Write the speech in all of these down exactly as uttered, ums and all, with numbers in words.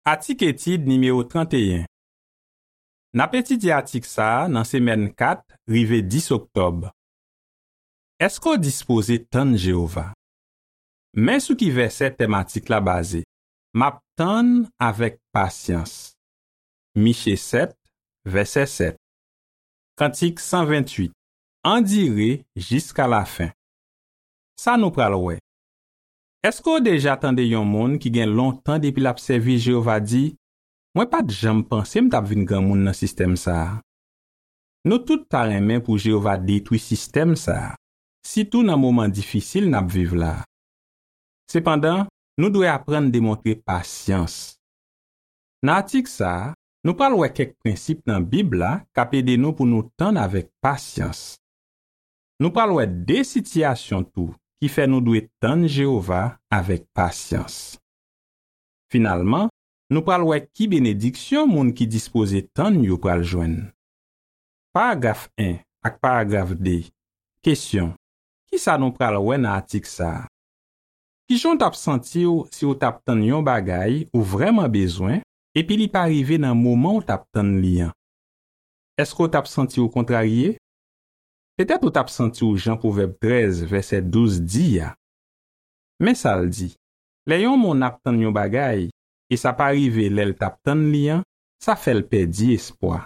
Atik etid nimewo trannteyen. N ap etidye atik sa a nan semèn kat rive dis oktòb. Èske w dispoze tann Jewova? Men sou ki vèsè tèm atik la baze: M ap tann avèk pasyans. Miche sèt, vèsè sèt. Kantik san venntuit. Andire jiska lafen. Sa nou pral wè. Èske w deja tande yon moun ki gen lontan depi l ap sèvi Jewova di, "Mwen pa t janm panse m t ap vin granmoun nan sistèm sa a"? Nou tout ta renmen pou Jewova detwi sistèm sa a, sitou nan moman difisil n ap viv la a. Sepandan, nou dwe aprann demontre pasyans. Nan atik sa a, nou pral wè kèk prensip nan Bib la k ap ede nou pou nou tann avèk pasyans. Nou pral wè de sitiyasyon tou ki fè nou dwe tann Jewova avèk pasyans. Finalman, nou pral wè ki benediksyon moun ki dispoze tann yo pral jwenn. Paragraf en ak paragraf de. Kesyon: Ki sa nou pral wè nan atik sa a? Ki jan w t ap santi w si w t ap tann yon bagay ou vrèman bezwen epi li pa rive nan moman w t ap tann li an? Èske w t ap santi w kontrarye? Petèt ou t ap santi w jan Pwovèb trèz, vèsè douz di a. Men sa l di: "Lè yon moun ap tann yon bagay e sa pa rive lè l t ap tann li an, sa fè l pèdi espwa."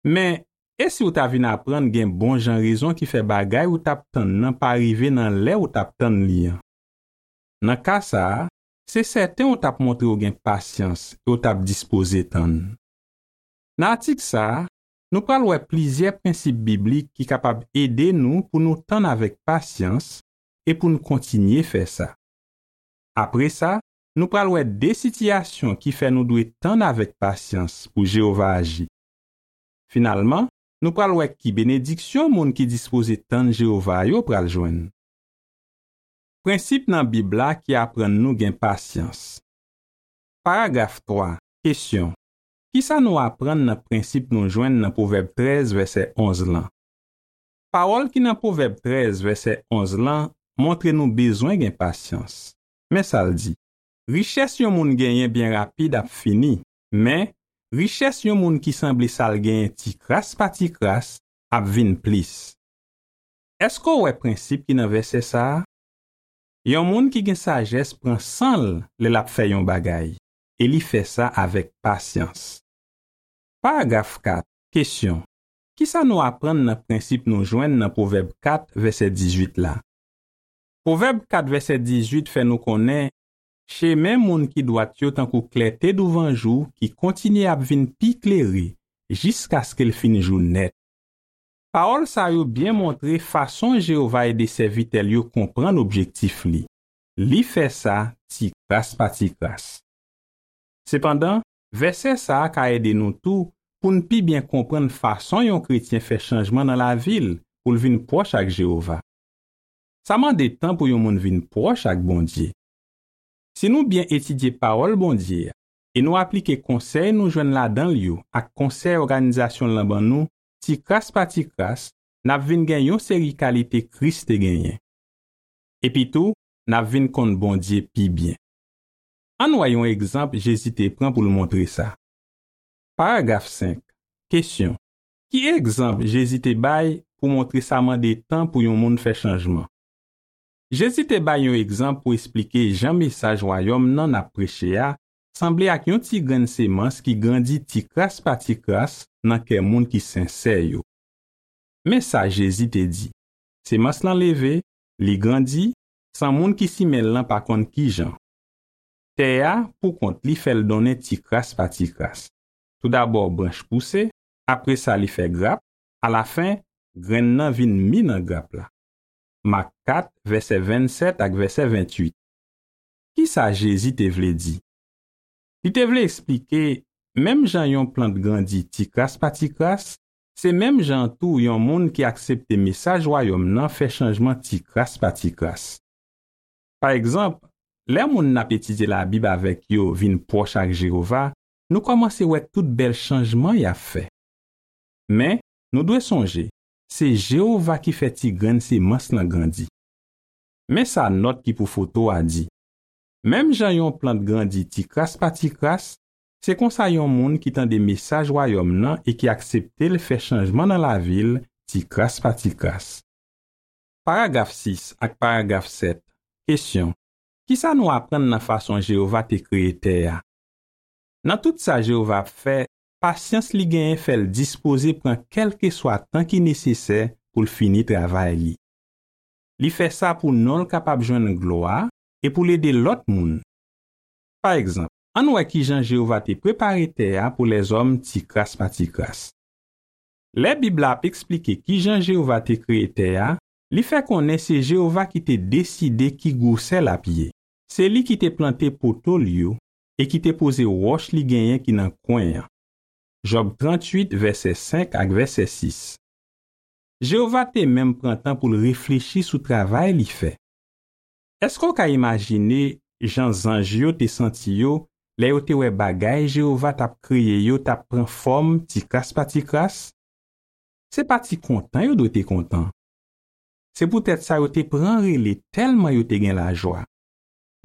Men, e si w ta vin aprann gen bon jan rezon ki fè bagay ou t ap tann nan pa rive nan lè ou t ap tann li an? Nan ka sa a, se sèten w t ap montre w gen pasyans e w t ap dispoze tann. Nan atik sa a, nou pral wè plizyè prensip biblik ki kapab ede nou pou nou tann avèk pasyans e pou n kontinye fè sa. Apre sa, nou pral wè de sitiyasyon ki fè nou dwe tann avèk pasyans pou Jewova aji. Finalman, nou pral wè ki benediksyon moun ki dispoze tann Jewova yo pral jwenn. Prensip nan Bib la ki aprann nou gen pasyans. Paragraf twa. Kesyon: Ki sa nou aprann nan prensip nou jwenn nan Pwovèb trèz, vèsè onz lan? Pawòl ki nan Pwovèb trèz, vèsè onz lan, montre nou bezwen gen pasyans. Men sa l di: "Richès yon moun genyen byen rapid ap fini, men richès yon moun ki sanble sa l genyen ti kras pa ti kras ap vin plis." Èske w wè prensip ki nan vèsè sa a? Yon moun ki gen sajès pran san l lè l ap fè yon bagay, e li fè sa avèk pasyans. Paragraf kat. Kesyon: Ki sa nou aprann nan prensip nou jwenn nan Pwovèb kat, vèsè dizuit la? Pwovèb kat, vèsè dizuit fè nou konnen chemen moun ki dwat yo tankou klète douvan jou ki kontinye ap vin pi klere jiskaske l fin jou nèt. Pawòl sa yo byen montre fason Jewova ede sèvitè l yo konprann objektif li. Li fè sa ti kras pa ti kras. Sepandan, vèsè sa a ka ede nou tou pou n pi byen konprann fason yon kretyen fè chanjman nan lavi l pou l vin pwòch ak Jewova. Sa mande tan pou yon moun vin pwòch ak Bondye. Si nou byen etidye Pawòl Bondye a e nou aplike konsèy nou jwenn ladan l yo ak konsèy òganizasyon l lan ban nou, ti kras pa ti kras, n ap vin gen yon seri kalite Kris te genyen. Epitou, n ap vin konn Bondye pi byen. Ann wè yon egzanp Jezi te pran pou l montre sa. Paragraf senk. Kesyon: Ki egzanp Jezi te bay pou montre sa mande tan pou yon moun fè chanjman? Jezi te bay yon egzanp pou esplike jan mesaj Wayòm nan n ap preche a sanble ak yon ti grenn semans ki grandi ti kras pa ti kras nan kè moun ki sensè yo. Men sa Jezi te di: "Semans lan leve, li grandi, san moun ki simen l lan pa konn ki jan. Tè a, poukont li, fè l donnen ti kras pa ti kras. Toudabò, branch pouse, apre sa, li fè grap, alafen, grenn nan vin mi nan grap la." Mak kat, vèsè vennsèt ak vèsè venntuit. Ki sa Jezi te vle di? Li te vle eksplike, menm jan yon plant grandi ti kras pa ti kras, se menm jan tou yon moun ki aksepte mesaj Wayòm nan fè chanjman ti kras pa ti kras. Pa egzanp, lè moun n ap etidye Labib avèk yo vin pwòch ak Jewova, nou kòmanse wè tout bèl chanjman y ap fè. Men, nou dwe sonje, se Jewova ki fè ti grenn semans lan grandi. Men sa nòt ki pou foto a di: Menm jan yon plant grandi ti kras pa ti kras, se konsa yon moun ki tande mesaj Wayòm nan e ki aksepte l fè chanjman nan lavi l ti kras pa ti kras. Paragraf sis ak paragraf sèt. Kesyon: ki sa nou aprann nan fason Jewova te kreye tè a? Nan tout sa Jewova ap fè, pasyans li genyen fè l dispoze pran kèlkeswa tan ki nesesè pou l fini travay li. Li fè sa pou non l kapab jwenn glwa e pou l ede lòt moun. Pa egzanp, ann wè ki jan Jewova te prepare tè a pou lèzòm ti kras pa ti kras. Lè Bib la ap eksplike ki jan Jewova te kreye tè a, li fè konnen se Jewova ki te deside ki gwosè l ap ye. Se li ki te plante poto l yo e ki te poze wòch li genyen ki nan kwen an. Jòb tranntuit, vèsè senk ak vèsè sis. Jewova te menm pran tan pou l reflechi sou travay li fè. Èske w ka imajine jan zanj yo te santi yo lè yo te wè bagay Jewova t ap kreye yo t ap pran fòm ti kras pa ti kras? Se pa ti kontan yo dwe te kontan. Se poutèt sa yo te pran rele tèlman yo te gen lajwa.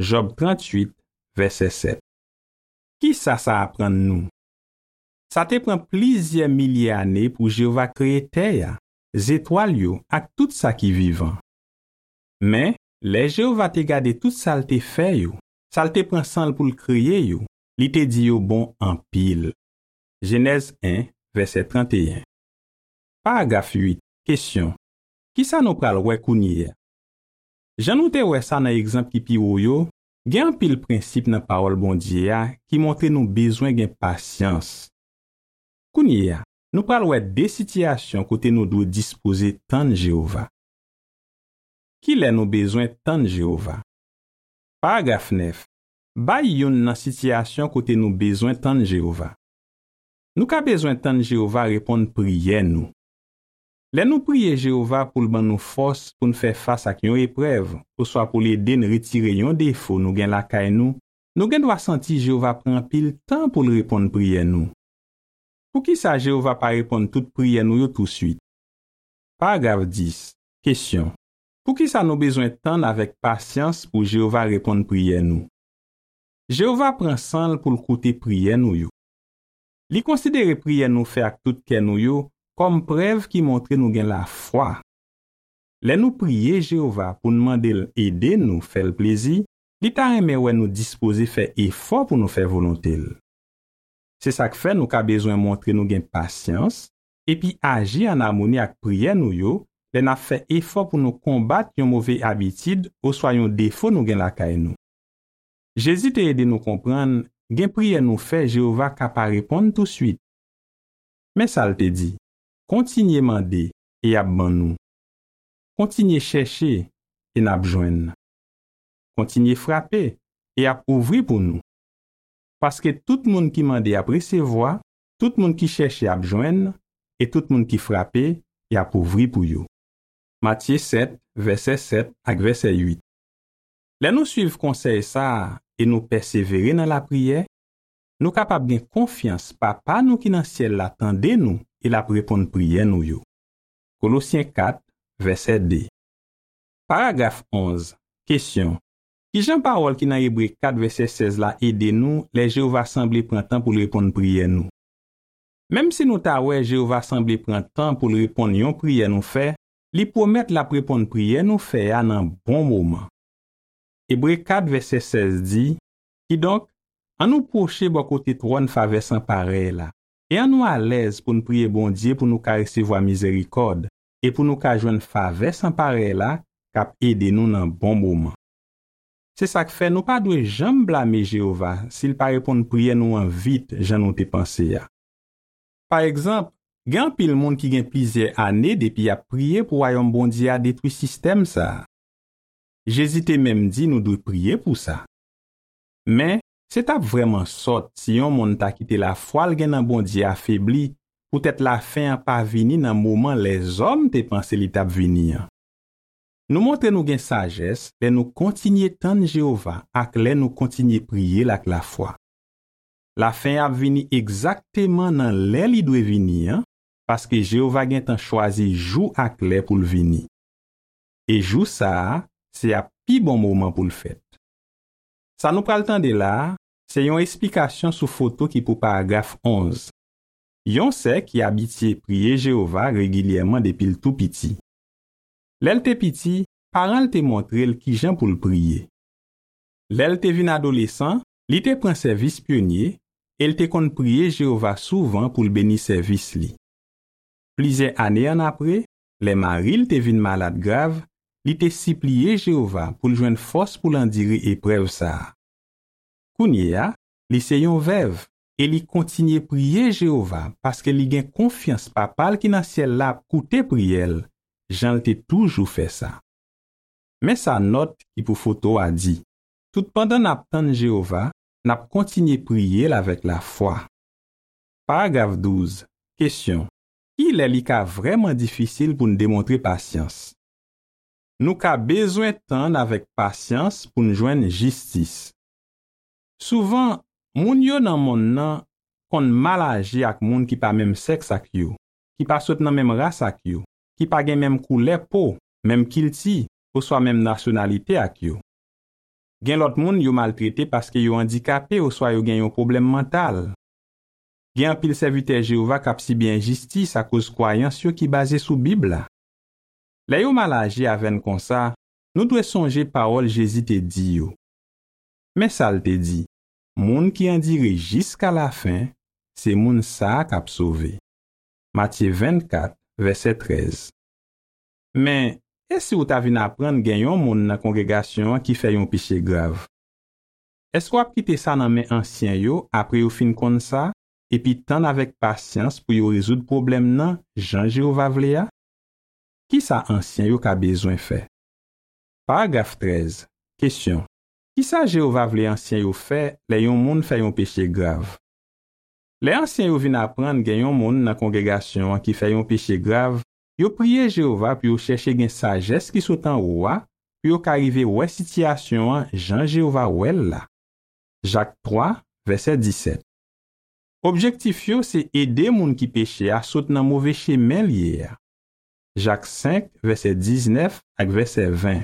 Jòb tranntuit, vèsè sèt. Ki sa sa aprann nou? Sa te pran plizyè milye ane pou Jewova kreye tè a, zetwal yo ak tout sa ki vivan. Men, lè Jewova te gade tout sa l te fè yo, sa l te pran san l pou l kreye yo, li te di yo bon anpil. Jenèz en, vèsè trannteyen. Paragraf uit. Kesyon: ki sa nou pral wè kounye a? Jan nou te wè sa nan egzanp ki pi wo yo, gen anpil prensip nan Pawòl Bondye a ki montre nou bezwen gen pasyans. Kounye a, nou pral wè de sitiyasyon kote nou dwe dispoze tann Jewova. Ki lè nou bezwen tann Jewova? Paragraf nèf. Bay youn nan sitiyasyon kote nou bezwen tann Jewova. Nou ka bezwen tann Jewova reponn priyè nou. Lè nou priye Jewova pou l ban nou fòs pou n fè fas ak yon eprèv, oswa pou l ede n retire yon defo nou gen lakay nou, nou gen dwa santi Jewova pran anpil tan pou l reponn priyè nou. Poukisa Jewova pa reponn tout priyè nou yo tousuit? Paragraf dis. Kesyon: poukisa nou bezwen tann avèk pasyans pou Jewova reponn priyè nou? Jewova pran san l pou l koute priyè nou yo. Li konsidere priyè nou fè ak tout kè nou yo kòm prèv ki montre nou gen lafwa. Lè nou priye Jewova pou n mande l ede nou fè l plezi, li ta renmen wè nou dispoze fè efò pou nou fè volonte l. Se sa k fè nou ka bezwen montre nou gen pasyans epi aji ann amoni ak priyè nou yo lè n ap fè efò pou nou konbat yon move abitid oswa yon defo nou gen lakay nou. Jezi te ede nou konprann gen priyè nou fè Jewova ka pa reponn tousuit. Men sa l te di: kontinye mande e y ap ban nou. Kontinye chèche e n ap jwenn. Kontinye frape e y ap ouvri pou nou. Paske tout moun ki mande ap resevwa, tout moun ki chèche ap jwenn, e tout moun ki frape, y ap ouvri pou yo. Matye sèt, vèsè sèt ak vèsè uit. Lè nou suiv konsèy sa a e nou pèsevere nan lapriyè, nou kapab gen konfyans Papa nou ki nan syèl la tande nou e l ap reponn priyè nou yo. Kolosyen kat, vèsè de. Paragraf onz. Kesyon: ki jan pawòl ki nan Ebre kat vèsè sèz la ede nou lè Jewova sanble pran tan pou l reponn priyè nou? Menm si nou ta wè Jewova sanble pran tan pou l reponn yon priyè nou fè, li pwomèt l ap reponn priyè nou fè a nan bon moman. Ebre kat vèsè sèz di: kidonk, ann nou pwoche bò kote twòn favè san parèy la, e ann nou alèz pou n priye Bondye pou nou ka resevwa mizerikòd e pou nou ka jwenn favè san parèy la k ap ede nou nan bon moman. Se sa k fè nou pa dwe janm blame Jewova si l pa reponn priyè nou an vit jan nou te panse a. Pa egzanp, gen anpil moun ki gen plizyè ane depi y ap priye pou Wayòm Bondye a detwi sistèm sa a. Jezi te menm di nou dwe priye pou sa. Men, se t ap vrèman sòt si yon moun ta kite lafwa l gen nan Bondye afebli poutèt lafen an pa vini nan moman lèzòm te panse li t ap vini an. Nou montre nou gen sajès lè nou kontinye tann Jewova ak lè nou kontinye priye l ak lafwa. Lafen an ap vini egzakteman nan lè li dwe vini an, paske Jewova gentan chwazi jou ak lè pou l vini. E jou sa a, se ap pi bon moman pou l fèt. Sa nou pral tande la a, se yon esplikasyon sou foto ki pou paragraf onz. Yon sè ki abitye priye Jewova regilyèman depi l tou piti. Lè l te piti, paran l te montre l ki jan pou l priye. Lè l te vin adolesan, li te pran sèvis pyonye e l te konn priye Jewova souvan pou l beni sèvis li. Plizyè ane annapre, lè mari l te vin malad grav, li te sipliye Jewova pou l jwenn fòs pou l andire eprèv sa a. Kounye a, li se yon vèv e li kontinye priye Jewova paske li gen konfyans Papa l ki nan syèl la ap koute priyè l, jan l te toujou fè sa. Men sa nòt ki pou foto a di: Toutpandan n ap tann Jewova, n ap kontinye priye l avèk lafwa. Paragraf douz. Kesyon: Kilè li ka vrèman difisil pou n demontre pasyans? Nou ka bezwen tann avèk pasyans pou n jwenn jistis. Souvan, moun yo nan monn nan konn mal aji ak moun ki pa menm sèks ak yo, ki pa sot nan menm ras ak yo, ki pa gen menm koulè po, menm kilti, oswa menm nasyonalite ak yo. Gen lòt moun yo maltrete paske yo andikape oswa yo gen yon pwoblèm mantal. Gen anpil sèvitè Jewova k ap sibi enjistis akoz kwayans yo ki baze sou Bib la. Lè yo mal aji avè n konsa, nou dwe sonje pawòl Jezi te di yo. Men sa l te di: Moun ki andire jiska lafen, se moun sa a k ap sove. Matye vennkat, vèsè trèz. Men, e si w ta vin aprann gen yon moun nan kongregasyon an ki fè yon peche grav? Èske w ap kite sa nan men ansyen yo apre yo fin konn sa, epi tann avèk pasyans pou yo rezoud pwoblèm nan jan Jewova vle a? Ki sa ansyen yo ka bezwen fè? Paragraf trèz. Kesyon: Ki sa Jewova vle ansyen yo fè lè yon moun fè yon peche grav? Lè ansyen yo vin aprann gen yon moun nan kongregasyon an ki fè yon peche grav, yo priye Jewova pou yo chèche gen sajès ki sot anwo a, pou yo ka rive wè sitiyasyon an jan Jewova wè l la. Jak twa, vèsè disèt. Objektif yo se ede moun ki peche a sot nan move chemen l ye a. Jak senk, vèsè diznèf ak vèsè ven.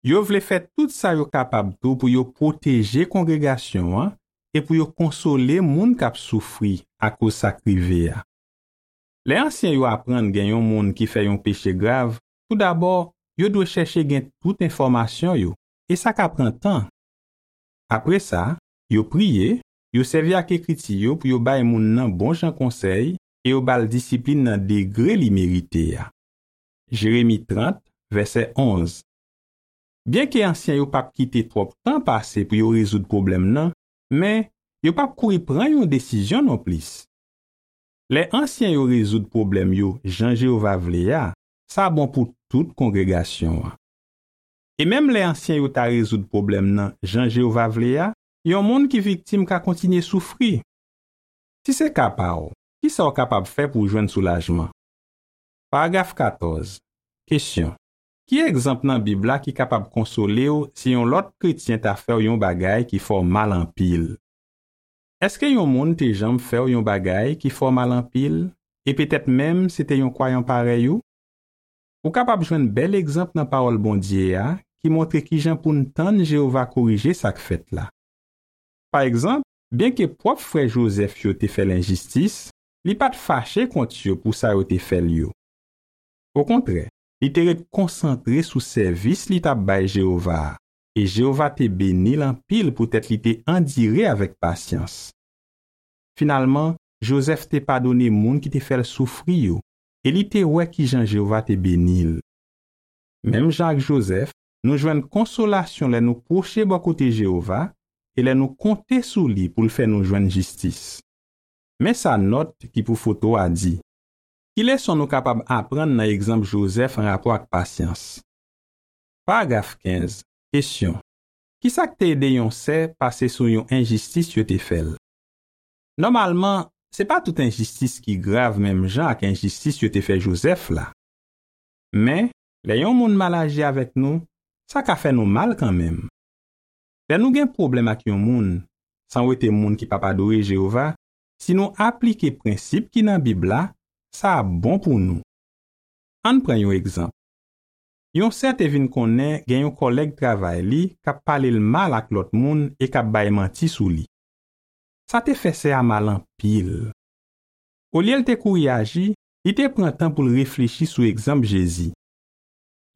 Yo vle fè tout sa yo kapab tou pou yo pwoteje kongregasyon an e pou yo konsole moun k ap soufri akoz sa k rive a. Lè ansyen yo aprann gen yon moun ki fè yon peche grav, toudabò, yo dwe chèche gen tout enfòmasyon yo, e sa ka pran tan. Apre sa, yo priye, yo sèvi ak Ekriti yo pou yo bay moun nan bon jan konsèy e yo ba l disiplin nan degre li merite a. Jeremi trant, vèsè onz. Byenke ansyen yo p ap kite twòp tan pase pou yo rezoud pwoblèm nan, men yo p ap kouri pran yon desizyon nonplis. Lè ansyen yo rezoud pwoblèm yo jan Jewova vle a, sa bon pou tout kongregasyon an. E menm lè ansyen yo ta rezoud pwoblèm nan jan Jewova vle a, yon moun ki viktim ka kontinye soufri. Si se ka pa w, ki sa w kapab fè pou w jwenn soulajman? Paragraf katòz. Kesyon: Ki egzanp nan Bib la ki kapab konsole w si yon lòt kretyen ta fè w yon bagay ki fè w mal anpil? Èske yon moun te janm fè w yon bagay ki fè w mal anpil, e petèt menm se te yon kwayan parèy ou? Ou kapab jwenn bèl egzanp nan Pawòl Bondye a ki montre ki jan pou n tann Jewova korije sa k fèt la. Pa egzanp, byenke pwòp frè Jozèf yo te fè l enjistis, li pa t fache kont yo pou sa yo te fè l yo. Okontrè, li te ret konsantre sou sèvis li t ap bay Jewova a, e Jewova te beni l anpil poutèt li te andire avèk pasyans. Finalman, Jozèf te padone moun ki te fè l soufri yo, e li te wè ki jan Jewova te beni l. Menm jan ak Jozèf, nou jwenn konsolasyon lè nou pwoche bò kote Jewova e lè nou konte sou li pou l fè nou jwenn jistis. Men sa nòt ki pou foto a di: Ki leson nou kapab aprann nan egzanp Jozèf anrapò ak pasyans? Paragraf kenz. Kesyon: Ki sa k te ede yon sè pase sou yon enjistis yo te fè l? Nòmalman, se pa tout enjistis ki grav menm jan ak enjistis yo te fè Jozèf la. Men, lè yon moun mal aji avèk nou, sa ka fè nou mal kanmenm. Lè nou gen pwoblèm ak yon moun, san wete moun ki p ap adore Jewova, si nou aplike prensip ki nan Bib la, sa ap bon pou nou. Ann pran yon egzanp. Yon sè te vin konnen gen yon kòlèg travay li k ap pale l mal ak lòt moun e k ap bay manti sou li. Sa te fè sè a mal anpil. Olye l te kouri aji, li te pran tan pou l reflechi sou egzanp Jezi.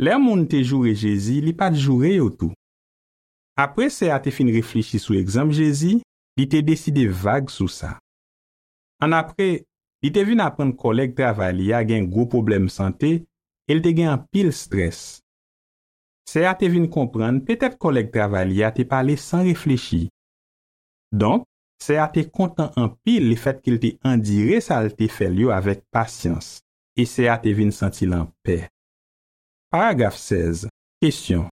Lè moun te joure Jezi, li pa t joure yo tou. Apre sè a te fin reflechi sou egzanp Jezi, li te deside vag sou sa. Annapre, li te vin aprann kòlèg travay li a gen gwo pwoblèm sante e l te gen anpil estrès. Sè a te vin konprann petèt kòlèg travay li a te pale san reflechi. Donk, sè a te kontan anpil lefètke l te andire sa l te fè l yo avèk pasyans, e sè a te vin santi l anpè. Paragraf sèz. Kesyon.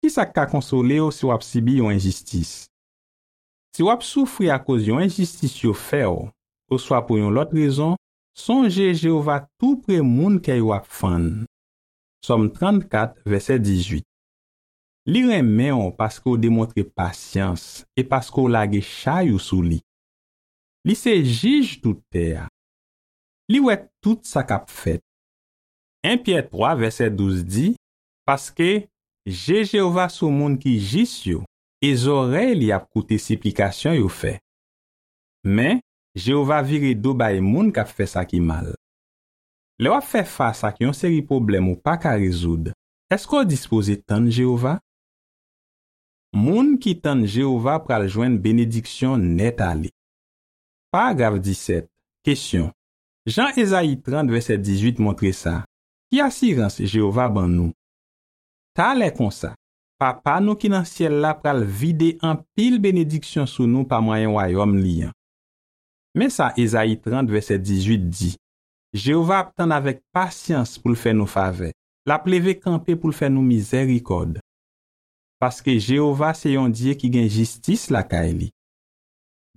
Ki sa k ka konsole w si w ap sibi yon enjistis? Si w ap soufri akoz yon enjistis yo fè w, oswa pou yon lòt rezon, sonje Jewova toupre moun kè yo ap fann. Sòm trannkat, vèsè dizuit. Li renmen w paske w demontre pasyans e paske w lage chay ou sou li. Li se jij tout tè a. Li wè tout sa k ap fèt. En Pyè twa, vèsè douz di, paske je Jewova sou moun ki jis yo, e zòrèy li ap koute siplikasyon yo fè. Men, Jewova vire do bay moun k ap fè sa ki mal. Lè w ap fè fas ak yon seri pwoblèm ou pa ka rezoud, èske w dispoze tann Jewova? Moun ki tann Jewova pral jwenn benediksyon nèt ale. Paragraf disèt. Kesyon. Jan Ezayi trant vèsè dizuit montre sa, ki asirans Jewova ban nou? Talè konsa, Papa nou ki nan syèl la pral vide anpil benediksyon sou nou pa mwayen Wayòm li an. Men sa Ezayi trant vèsè dizuit di, Jewova ap tann avèk pasyans pou l fè nou favè. L ap leve kanpe pou l fè nou mizèrikòd. Paske Jewova se yon Dye ki gen jistis lakay li.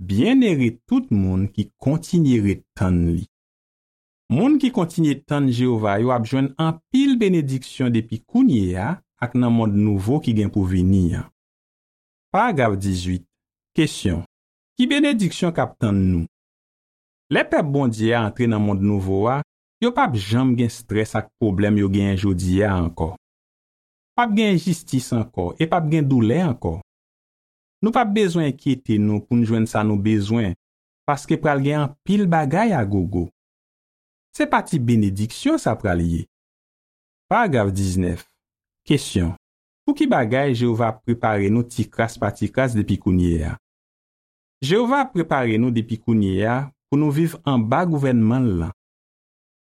Byennere tout moun ki kontinye ret tann li. Moun ki kontinye tann Jewova yo ap jwenn anpil benediksyon depi kounye a ak nan mond nouvo ki gen pou vini an. Paragraf dizuit. Kesyon. Ki benediksyon k ap tann nou? Lè pèp Bondye a antre nan mond nouvo a, yo p ap janm gen estrès ak pwoblèm yo genyen jodi a ankò. P ap gen enjistis ankò e p ap gen doulè ankò. Nou p ap bezwen enkyete nou pou n jwenn sa nou bezwen, paske pral gen anpil bagay a gogo. Se pa ti benediksyon sa pral ye. Paragraf diznèf. Kesyon. Pou ki bagay Jewova ap prepare nou ti kras pa ti kras depi kounye a? Jewova ap prepare nou depi kounye a pou nou viv anba gouvènman l lan.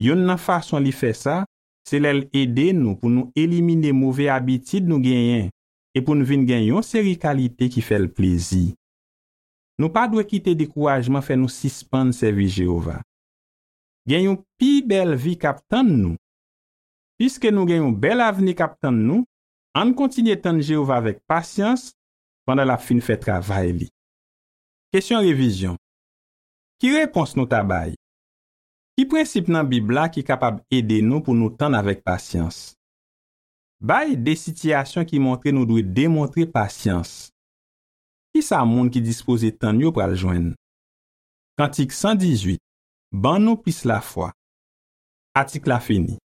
Youn nan fason li fè sa, se lè l ede nou pou nou elimine move abitid nou genyen e pou n vin gen yon seri kalite ki fè l plezi. Nou pa dwe kite dekourajman fè nou sispann sèvi Jewova. Gen yon pi bèl vi k ap tann nou. Piske nou gen yon bèl avni k ap tann nou, ann kontinye tann Jewova avèk pasyans pandan l ap fin fè travay li. Kesyon revizyon. Ki repons nou ta bay? Ki prensip nan Bib la ki kapab ede nou pou nou tann avèk pasyans? Bay de sitiyasyon ki montre nou dwe demontre pasyans. Ki sa moun ki dispoze tann yo pral jwenn? Kantik san dizuit. Ban nou plis lafwa. Atik la fini.